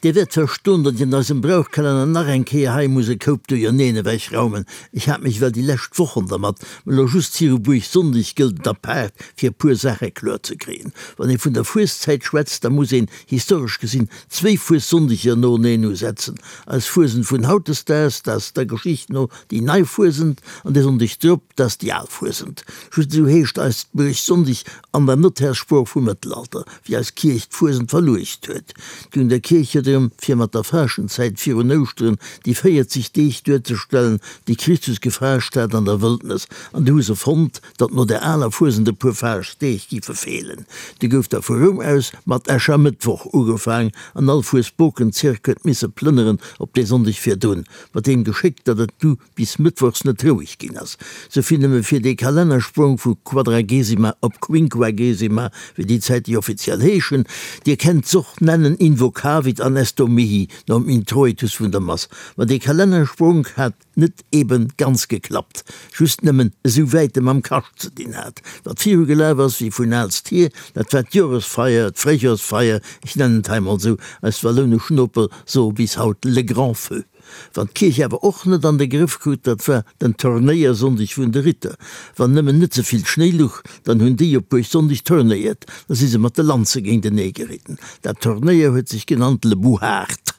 Dir wäert verstoen, datt ech an eisem Brauchkalenner nach eng Kéier hei muss e Koup Duerjerneen ewechraumen. Ech hat mech well déi lescht Wochen dermat, mä elo just viru Buergsonndeg gëllt et apaart, fir e puer Saache kloer ze kréien. Wann ee vun der Fueszäit schwätzt, da muss een, historesch gesinn, zwéi Fuessonndeger noeneen usetzen. Eis Fuesent vun hautdesdaags, dat ass der Geschicht no déi nei Fuesent, an dee Sonndeg drop, dat ass déi al Fuesent. Just esou heescht eist Buergsonndeg an der Notärssprooch vum Mëttelalter. wéi eis Kierch d'Fuesent verluecht huet. D'Un der Kierch huet erëm, fir mat der Faaschtenzäit virun Ouschteren déi 40 Deeg duerzestellen, déi Christus gefaascht hat an der Wëldnes, an du hu se fonnt, datt no der aler Fuesent e puer Faaschtdeeg giffe feelen. Du gouf da vu Roum aus mat Äschermëttwoch ugefaang, an all Fuesbokenzirk huet misse plënneren op dee Sonndeg virdrun, mat deem Geschéck, datt et du bis mëttwochs net roueg ginn ass. Souvill nëmme fir dee Kalennersprong vu Quadragesima op Quinquagesima, wéi déi Zäit déi offiziell heeschen. Dir kennt s'och nennen Invocavit an Esto mihi nom Introitus vun der Mass. Ma dee Kalennersprong hat net eben ganz geklappt, just nëmmen esou wäit e mam Kascht ze dinn hat. Wat viru gelaf ass wéi vun aalst hier, dat war d'Joresfeier, d'Fréijorsfeier, ech nennen et hei mol esou, eis wallounesch Noper soe bis haut le grand feu. Wat d'Kierch awer och net an de Grëff krut, dat war den Turnéiersonndeg vun de Ritter. Wann nëmmen net ze vill Schnéi luch, dann hunn déi op Buergsonndeg turnéiert, da si se mat de Lanze géintenee geritten. Dat Turnéier huet sech genannt le Bouhard.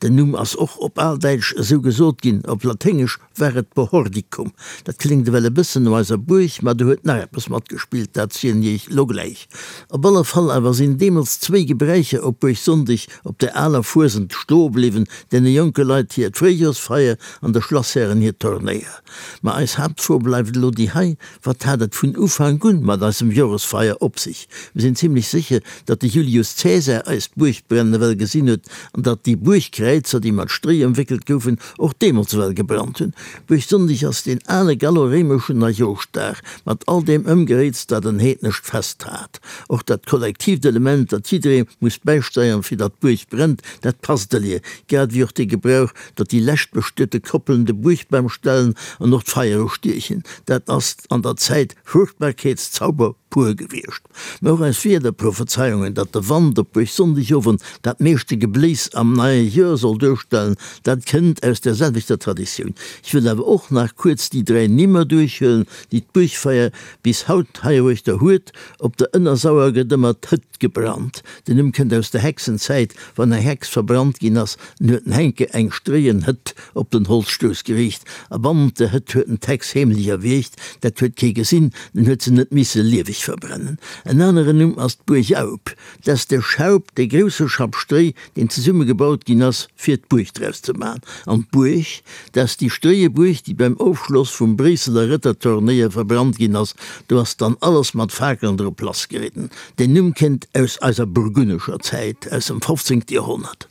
Den Numm ass och op Aldäitsch esou gesot ginn, op Laténgesch war et Bohordicum. Dat kléngt ewell e bëssen no eiser Buerg, ma do huet nach eppes matgespillt, dat zielen iech lo gläich. Op alle Fall awer sinn deemools zwéi Gebräicher op Buergsonndeg op der aler Fuesent stoe bliwwen, Deene jonke Leit hiert Fréijorsfeier an de Schlasshären hir Turnéier. Ma eis Haaptfro bleift elo déi hei, Wat hat et vun Ufank un mat eisem Joresfeier op sech? Mir sinn zimlech sécher, datt de Julius Cäsar eist Buergbrennen ewell gesinn huet an datt déi Buergkräizer, déi mat Stréi ëmwéckelt goufen, och deemools ewell gebrannt hunn. Buergsonndeg ass deen ale gallo-réimeschen Neijooschdag mat all deem Ëmgeréits, dat en heednescht Fest hat. Och dat kollektiivt Element, datt jidderee muss bäisteieren, fir datt d'Buerg brennt, Dat passt elie, grad ewéi och dee Gebrauch, datt déi lescht bestuete Koppelen de Buergbam stellen an och d'Feier ustiechen. Dat ass an der Zäit Fruchtbarkeetszauber pur gewiescht. Mä och eis Wiederprophezeiungen, datt de Wand op Buergsonndegowend dat meeschte Gebléis am neie Joer soll duerstellen, dat kënnt aus där selwechter Traditioun. Ech wëll awer och nach kuerz déi 3 Nimmer duerchhuelen, déi d'Buergfeier bis haut heiruechter huet, Op der Ënnersauer gëtt ëmmer d'Hëtt gebrannt. Den Numm kënnt aus der Hexenzäit, wann eng Hex verbrannt ginn ass, dann huet den Henke eng stréien Hëtt op den Holzstouss geriicht a bannent der Hëtt huet en d'Hex heemlech erwiergt. Dat huet kee gesinn, den huet se net misse lieweg verbrennen. En aneren Numm ass d'Buerg-Aup. Dat ass de Schaup, dee grousse Schapp Stréi, deen zesumme gebaut ginn ass, fir d'Buerg draus ze man. An d'Buerg, dat ass déi stréie Buerg, déi beim Ofschloss vum Bréisseler Rëtterturnéier verbrannt ginn ass. Do ass dann alles mat Fakelen drop lassgeridden. Den Numm kënnt aus eiser burgunnescher Zäit, aus dem 15. Joerhonnert.